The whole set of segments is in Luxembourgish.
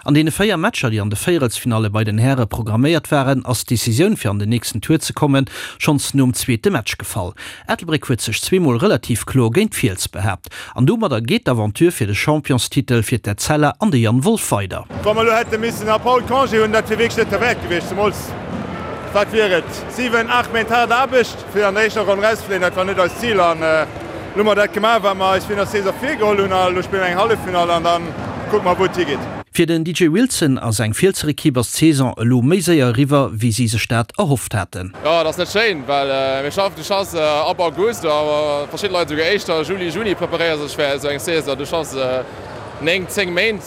An deene 4 Matcher, déi an de Véierelsfinalle bei den Häre programméiert waren, ass d'Decisioun fir an den nächsten Tour ze kommen, schonns nom zweete Match gefall. Ettelbréck huet sech zweemol relativ kloer géint d'Fiels behaapt an domadder geet d'Aventure fir de Championstitel fir d'Etzella an de Jan Wolff weider. Wa mer elo hätte missen ab haut Congé hunn, dat wier wierklech net derwäert gewiescht, zemools, wat wier et, 7, 8 Méint haart Aarbecht, fir an der éischter Ronn erauszefléien. Dat war net eist Zil an elo hu mer dat gemaach, wat mer eis virun der Saison virgeholl hunn a elo spille mer eng Halleffinall an da kucke mer, wou et higeet. Fir den DJ Wilson a seng Fielser Ekipp ass d'Saison elo méi séier eriwwer, wéi si sech dat erhofft haten. Jo, et ass net schéin, well mir schaffen, du schaffs ab August, a verschidde Leit esouguer éischter, Juli, Juni preparéiere sech fir esou eng Saison. Du schaffs 9, 10 Méint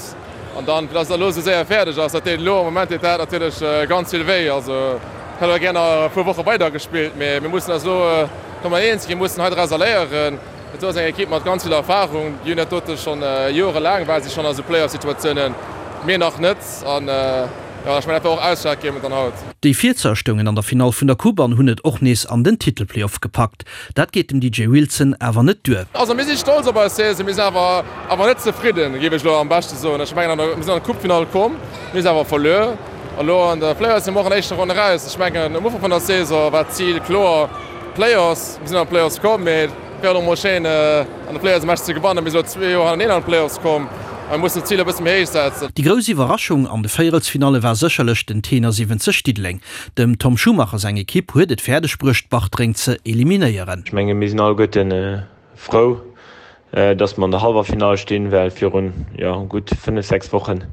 an dann, fir dass et elo esou séier fäerdeg ass, dat deet elo am Moment deet dat natierlech ganz vill wéi. Also ech hätt och gär nach e puer Woche weider gespillt, mee mir mussen eis elo kommen eens ginn, mir mussen hei drauser léieren. Et ass eng Ekipp mat ganz vill Erfarung. Déi hunn dat dote schonn jorelaang, ware si schonn a sou Playoff-Situatiounen, mir nach net. An jo, ech mengen, dat war och ausschlaggebend dann haut. Déi Fielsser stoungen an der Finall vun der Coupe an hunn et och nees an den Titelplayoff gepackt. Dat geet dem DJ Wilson awer net duer. Also mir si stolz op eis Saison, mir sinn awer awer net zefridden, géif ech elo am beschte soen. Ech mengen, mir sinn an d'Coupefinall komm, mir si awer verluer. A lo an de Playoffs si mer och an der éischter Ronn eraus. Ech mengen, um Ufank vun der Saison war d'Zil kloer, Playoffs. Mir sinn an d'Playoffs komm, mee et wär och mol schéin an de Playoffs e Match ze gewannen. Mir si lo zwee Joer hannereen an d'Playoffs komm a mir mussen d'Zil e bësse méi héich setzen. Déi grouss Iwwerraschung an de Véierelsfinalle war sécherlech den Tenor 70 Diddeleng. Dem Tom Schumacher seng Ekipp huet et fäerdeg bruecht Bartreng ze eliminéieren. Ech menge mir sinn alleguerten frou, dass mer an der Hallwerfinall stinn, well virun, jo, gutt 5, 6 Wochen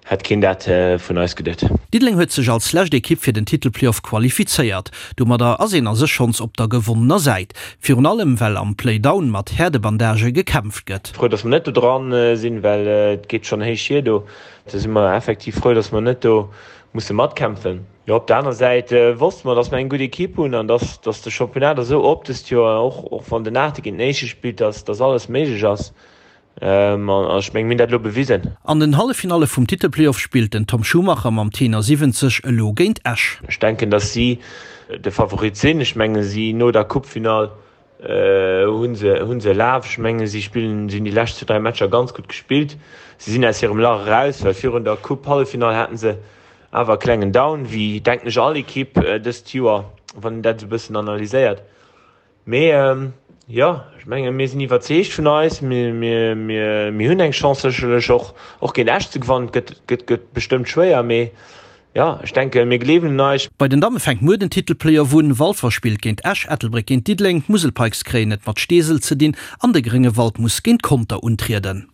Hätt keen dat vun eis geduet. Diddeleng huet sech als lescht Ekipp fir den Titelplayoff qualifizéiert. Domadder ass een a sech schonns op der gewonnener Säit. Virun allem well am Playdown mat Häerdebandagë gekämpft gëtt. Frou dass mer net do dran sinn, well et geet schonn héich hier do. Do si mer effektiv frou, dass mer net do musse matkämpfen. Jo, op der aner Säit wosste mer, dass mer eng gutt Ekipp hunn an dass dass de Championnat esou op dëst Joer, och och wann den Aachte géint den Éischte spillt, dass dass alles méiglech ass. An ech mengen, mir hunn dat elo bewisen. An den Halleffinalle vum Titelplayoff spillt den Tom Schumacher mam Tenor 70 elo géint Esch. Ech denken, datt si de Favorit sinn. Ech menge si no der Coupefinall hu se hu se e Laf. Ech menge si spillen, si hunn déi lescht zwou, dräi Matcher ganz gutt gespillt. Si sinn aus hirem Lach eraus, well virun der Coupe-Halleffinall haten se awer e klengen Down, wéi denken ech all Ekipp dëst Joer, wann een dat esou e bëssen analyséiert. Mee jo, ech menge mir sinn iwwerzeegt vun eis. Mir hunn eng Chance sécherlech och och géint Esch ze gewannen. Et gëtt gëtt bestëmmt schwéier, mee jo, ech denke mir gleewen un eis. Bei den Damme fänkt muer den Titelplayoff un. Walfer spillt géint Esch, Ettelbréck géint Diddeleng, d'Musel Pikes kréien et mat Steesel ze dinn an de Gréngewald muss géint Conter untrieden.